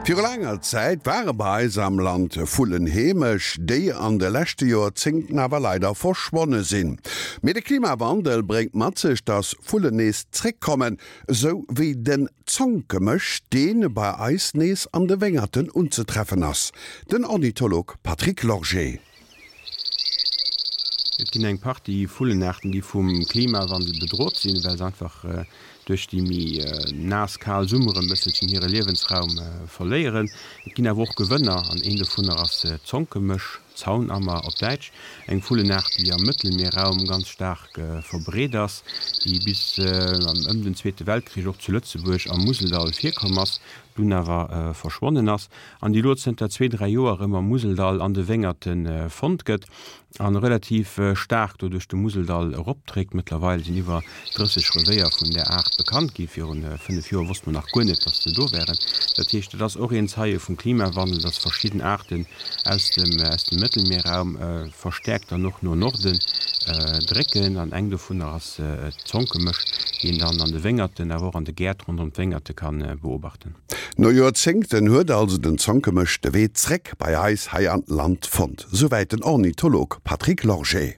Viru laanger Zäit ware bei eis am Land Vullen heemesch, déi an de leschte Joerzéngten awer leider verschwonne sinn. Mee de Klimawandel bréngt mat sech, dass Vullen nees zréckkommen, esou wéi den Zonkemësch, dee bei eis nees an de Wéngerten unzetreffen ass. Den Ornitholog Patrick Lorgé. Et ginn eng Partie Vullenaarten, déi vum Klimawandel bedrot sinn, well se einfach duerch déi méi naass, kal Summeren e bësselchen hire Liewensraum verléieren. Et ginn awer och Gewënner, an een dovunner ass d'Zonkemësch, Zaunammer op Däitsch, eng Vullenaart, déi am Mëttelmierraum ganz staark verbreet ass, déi bis ëm den Zweete Weltkrich och zu Lëtzebuerg am Museldall virkomm ass, dunn awer verschwonnen ass an déi elo zënter zwee, dräi Joer erëm am Museldall an de Wéngerte fonnt gëtt a relativ staark do duerch de Museldall eropdréckt. Mëttlerweil sinn iwwer 30 Revéier vun där Aart bekannt ginn. Viru 5 Joer wosst mer nach guer net, datt se do wären. Dat heescht, et ass och een Zeie vum Klimawandel, datt verschidden Aarten aus dem aus dem Mëttelmierraum verstäerkt dann och no Norden drécken. An eng dovunner ass d'Zonkemësch, déi een dann an de Wéngerten, awer och an de Gäert ronderëm d'Wéngerte ka beobachten. No Joerzéngten huet also den Zonkemësch de Wee zréck bei eis hei an d'Land fonnt. Souwäit den Ornitholog Patrick Lorgé.